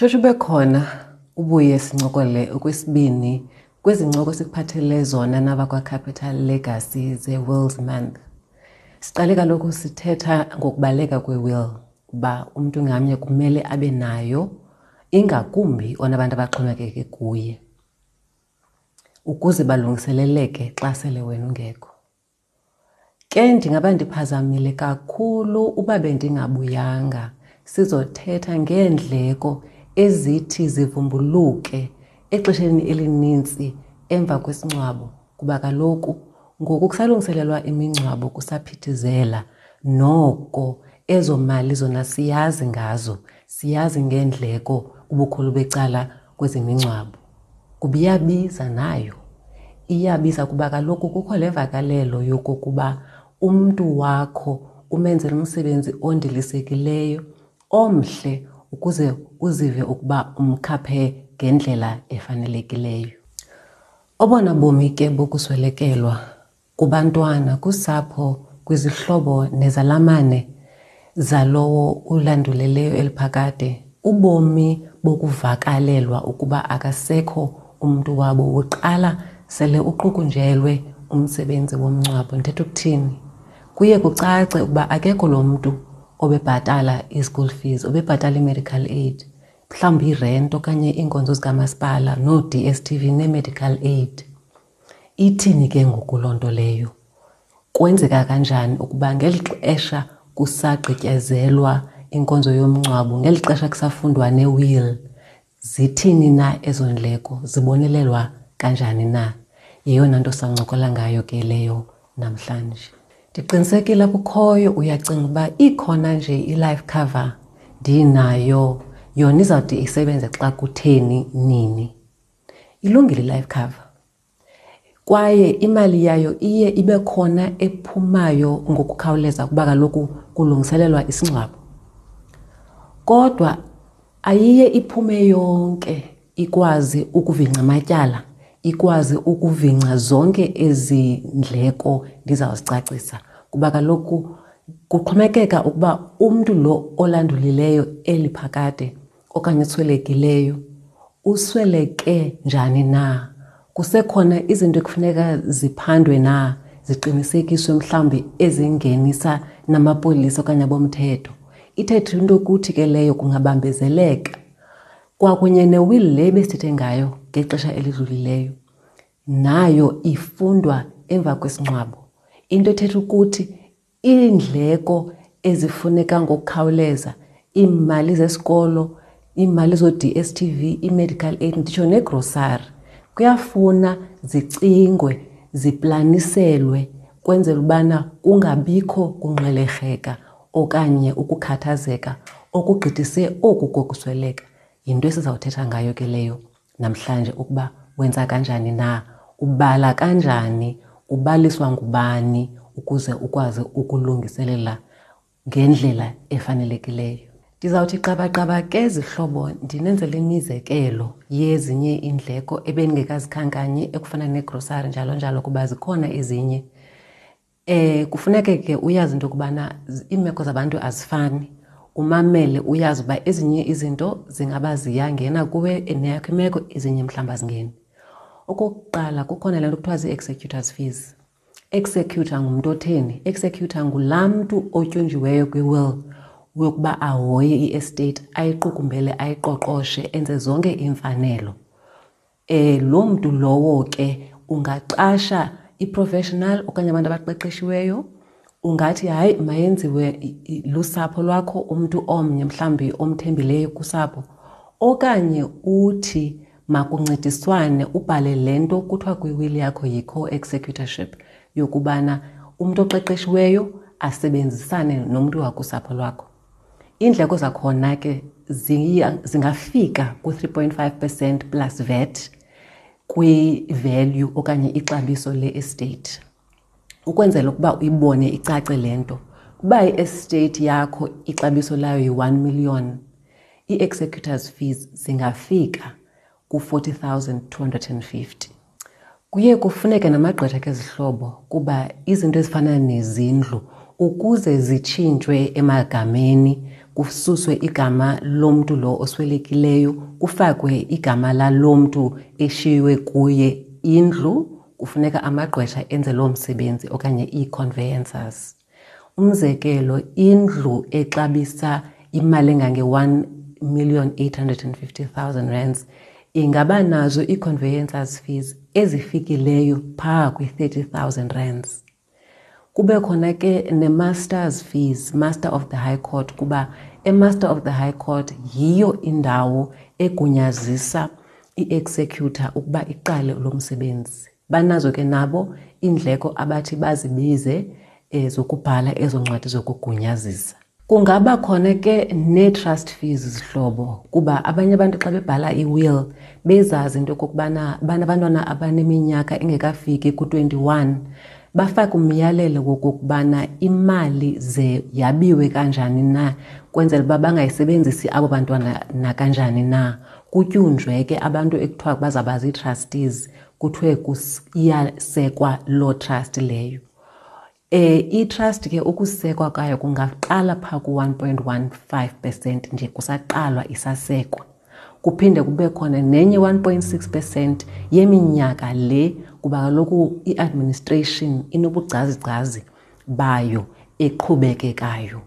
Tshotsho ube khona ubuye sincokole okwesibini kwezi ncoko sikuphathele zona nabakwaCapital Legacy ze-Wills Month. Siqale kaloku sithetha ngokubaleka kwe-will uba umntu ngamnye kumele abe nayo ingakumbi onabantu abaxhomekeke kuye ukuze balungiseleleke xa sele wena ungekho. Ke ndingaba ndiphazamile kakhulu uba bendingabuyanga sizothetha ngeendleko ezithi zivumbuluke exesheni elininzi emva kwesingcwabo kuba kaloku ngoku kusalungiselelwa imingcwabo kusaphithizela noko ezo mali zona siyazi ngazo siyazi ngeendleko ubukhulu becala kwezemingcwabo. Kuba iyabiza nayo. Iyabiza kuba kaloku kukho le vakalelo yokokuba umntu wakho umenzela umsebenzi ondilisekileyo omhle ukuze uzive ukuba umkhaphe ngendlela efanelekileyo. Obona bomi ke bokuswelekelwa kubantwana, kusapho, kwizihlobo nezalamane zalowo ulanduleleyo eliphakade, ubomi bokuvakalelwa ukuba akasekho umntu wabo woqala sele uqukunjelwe umsebenzi womngcwabo. Ndithetha ukuthini? Kuye kucace ukuba akekho lo mntu obebhatala i-school fees, obebhatala i-medical aid, mhlawumbi irent okanye iinkonzo zikamasipala noo-DSTV nee-medical aid. Ithini ke ngoku loo nto leyo? Kwenzeka kanjani ukuba ngeli xesha kusagqityezelwa inkonzo yomngcwabo, ngeli xesha kusafundwa ne-will, zithini na ezo ndleko, zibonelelwa kanjani na? Yeyona nto sancokola ngayo ke leyo namhlanje. Ndiqinisekile kukhoyo uyacinga uba ikhona nje i-life cover ndinayo, yona izawude isebenze xa kutheni nini. Ilungile i-life cover kwaye imali yayo iye ibe khona ephumayo ngokukhawuleza kuba kaloku kulungiselelwa isingcwabo. Kodwa ayiye iphume yonke ikwazi ukuvingca amatyala, ikwazi ukuvingca zonke ezi ndleko ndizawuzicacisa kuba kaloku kuxhomekeka ukuba umntu lo olandulileyo eli phakade okanye oswelekileyo usweleke njani na. Kusekhona izinto ekufuneka ziphandwe na, ziqinisekiswe mhlawumbi ezingenisa namapolisa okanye abomthetho. Ithethe into yokuthi ke leyo kungabambezeleka. Kwakunye ne-will le besithethe ngayo ngexesha elidlulileyo, nayo ifundwa emva kwesingcwabo. Into ethetha ukuthi iindleko ezifuneka ngokukhawuleza, iimali zesikolo, iimali zoo-D_S_T_V, ii-medical aid, nditsho negrosari, kuyafuna zicingwe, ziplaniselwe kwenzela ubana kungabikho kungxwelerheka okanye ukukhathazeka okugqithise oku kokusweleka. Yinto esizawuthetha ngayo ke leyo namhlanje ukuba wenza kanjani na, ubala kanjani, ubaliswa ngubani ukuze ukwazi ukulungiselela ngendlela efanelekileyo. Ndizawuthi qabaqaba ke zihlobo ndinenzele imizekelo yezinye iindleko ebendingekazikhankanyi ekufana negrosari njalo njalo kuba zikhona ezinye. Kufuneke ke uyazi into yokubana iimeko zabantu azifani. Umamele uyazi uba ezinye izinto zingaba ziyangena kuwe neyakho imeko, ezinye mhlawumbi azingeni. Okokuqala kukhona le nto kuthiwa zii-executors fees. Executor ngumntu otheni? Executor ngulaa mntu otyunjiweyo kwi-will yokuba ahoye i-estate, ayiqukumbele, ayiqoqoshe, enze zonke iimfanelo. Loo mntu lowo ke ungaqasha i-professional okanye abantu abaqeqeshiweyo. Ungathi hayi mayenziwe lusapho lwakho, umntu omnye mhlawumbi omthembileyo kusapho, okanye uthi makuncediswane ubhale le nto kuthiwa kwiwili yakho yi-co-executorship yokubana umntu oqeqeshiweyo asebenzisane nomntu wakusapho lwakho. Iindleko zakhona ke zingafika ku-3.5% plus VAT kwi-value okanye ixabiso le-estate. Ukwenzela ukuba uyibone icace le nto, uba i-estate yakho ixabiso layo yi-1 million, ii-executors fees zingafika ku-40,250. Kuye kufuneke namagqwetha ke zihlobo kuba izinto ezifana nezindlu ukuze zitshintshwe emagameni kususwe igama lomntu lo oswelekileyo kufakwe igama lalo mntu eshiywe kuye indlu, kufuneka amagqwetha enze loo msebenzi okanye ii-conveyancers. Umzekelo, indlu exabisa imali engange-1 850 000 rands ingaba nazo ii-conveyancers fees ezifikileyo phaa kwi-30 000 rands. Kube khona ke ne-masters fees, Master of the High Court, kuba e-Master of the High Court yiyo indawo egunyazisa i-executor ukuba iqale lo msebenzi. Banazo ke nabo iindleko abathi bazibize zokubhala ezo ncwadi zokugunyazisa. Kungaba khona ke nee-trust fees, zihlobo, kuba abanye abantu xa bebhala i-will bezazi into yokokubana banabantwana abaneminyaka engekafiki ku-21, bafake umyalelo wokokubana imali ze yabiwe kanjani na, kwenzela uba bangayisebenzisi abo bantwana nakanjani na. Kutyunjwe ke abantu ekuthiwa bazawuba zii-trustees, kuthiwe iyasekwa loo trust leyo. I-trust ke ukusekwa kwayo kungaqala phaa ku-1.15% nje kusaqalwa isasekwa. Kuphinde kube khona nenye 1.6% yeminyaka le, kuba kaloku i-administration inobugcazigcazi bayo eqhubekekayo.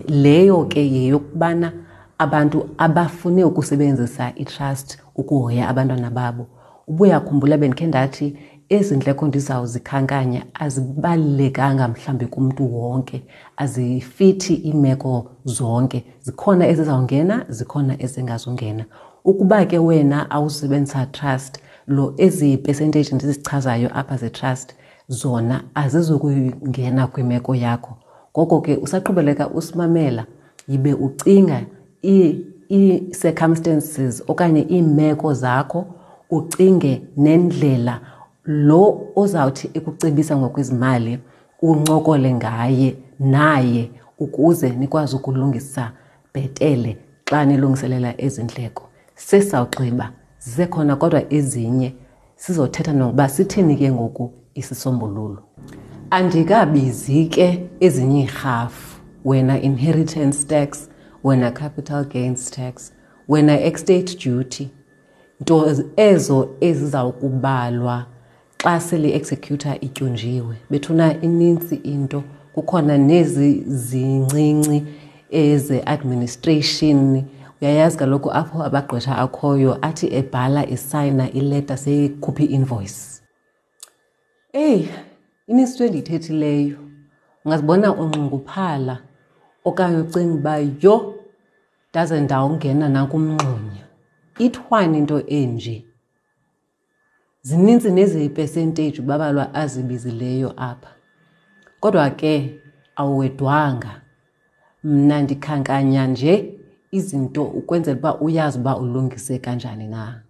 Leyo ke yeyokubana abantu abafune ukusebenzisa i-trust ukuhoya abantwana babo. Ubuyakhumbula bendikhe ndathi ezi ndleko ndizawuzikhankanya azibalulekanga mhlawumbi kumntu wonke, azifithi iimeko zonke. Zikhona ezizawungena, zikhona ezingazungena. Ukuba ke wena awusebenzisa trust, lo ezi percentage ndizichazayo apha ze-trust zona azizukungena kwimeko yakho. Ngoko ke usaqhubeleka usimamela, yibe ucinga ii-circumstances okanye iimeko zakho, ucinge nendlela lo ozawuthi ekucebisa ngokwezimali uncokole ngaye naye ukuze nikwazi ukulungisa bhetele xa nilungiselela ezi ndleko. Sesawugqiba, zisekhona kodwa ezinye, sizothetha nokuba sithini ke ngoku isisombululo. Andikabizi ke ezinye iirhafu, wena inheritance tax, wena capital gains tax, wena estate duty, nto ezo ezizawukubalwa xa sele i-executor ityunjiwe. Bethuna, inintsi into, kukhona nezi zincinci eze-administration. Uyayazi kaloku apho abagqwetha akhoyo athi ebhala esayina ileta seyikhupha i-invoice. Eyi, inintsi into endiyithethileyo. Ungazibona unxunguphala okanye ucinga uba yho, ndaze ndawungena nakumngxunya. Ithwani into enje? Zinintsi nezi percentage uBabalwa azibizileyo apha. Kodwa ke awuwedwanga. Mna ndikhankanya nje izinto ukwenzela uba uyazi uba ulungise kanjani na.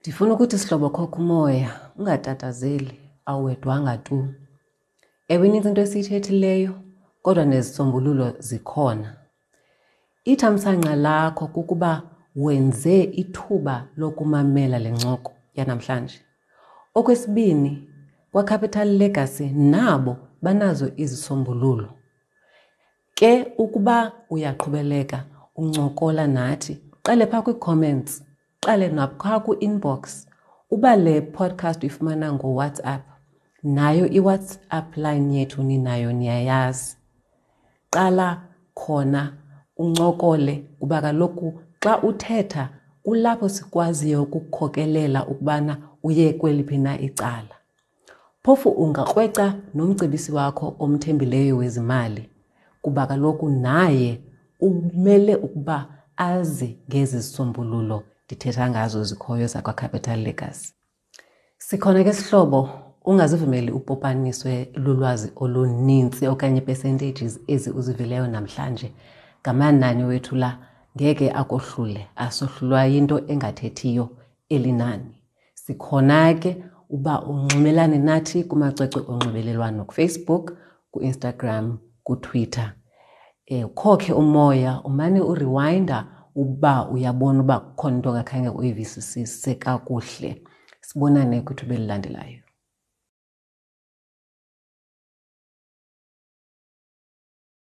Ndifuna ukuthi sihlobo, khokha umoya, ungatatazeli, awuwedwanga tu. Ewe, inintsi into esiyithethileyo, kodwa nezisombululo zikhona. Ithamsanqa lakho kukuba wenze ithuba lokumamela le ncoko yanamhlanje. Okwesibini, kwaCapital Legacy nabo banazo izisombululo. Ke ukuba uyaqhubeleka uncokola nathi, qale phaa kwii-comments, qale naphaa kwi-inbox. Uba le podcast uyifumana ngoWhatsApp, nayo iWhatsApp line yethu ninayo, niyayazi. Qala khona uncokole, kuba kaloku xa uthetha kulapho sikwaziyo ukukhokelela ukubana uye kweliphi na icala. Phofu ungakrweca nomcebisi wakho omthembileyo wezimali, kuba kaloku naye umele ukuba azi ngezi zisombululo ndithetha ngazo zikhoyo zakwaCapital Legacy. Sikhona ke sihlobo, ungazivumeli upopaniswe lulwazi olunintsi okanye percentages ezi uzivileyo namhlanje. Ngamanani wethu la, ngeke akohlule, asohlulwa yinto engathethiyo elinani. Sikhona ke uba unxibelane nathi kumacwecwe onxibelelwano, kuFacebook, kuInstagram, kuTwitter. Ukhokhe umoya, umane urewinda uba uyabona uba kukhona into ongakhange uyivisisise kakuhle. Sibonane kwithuba elilandelayo.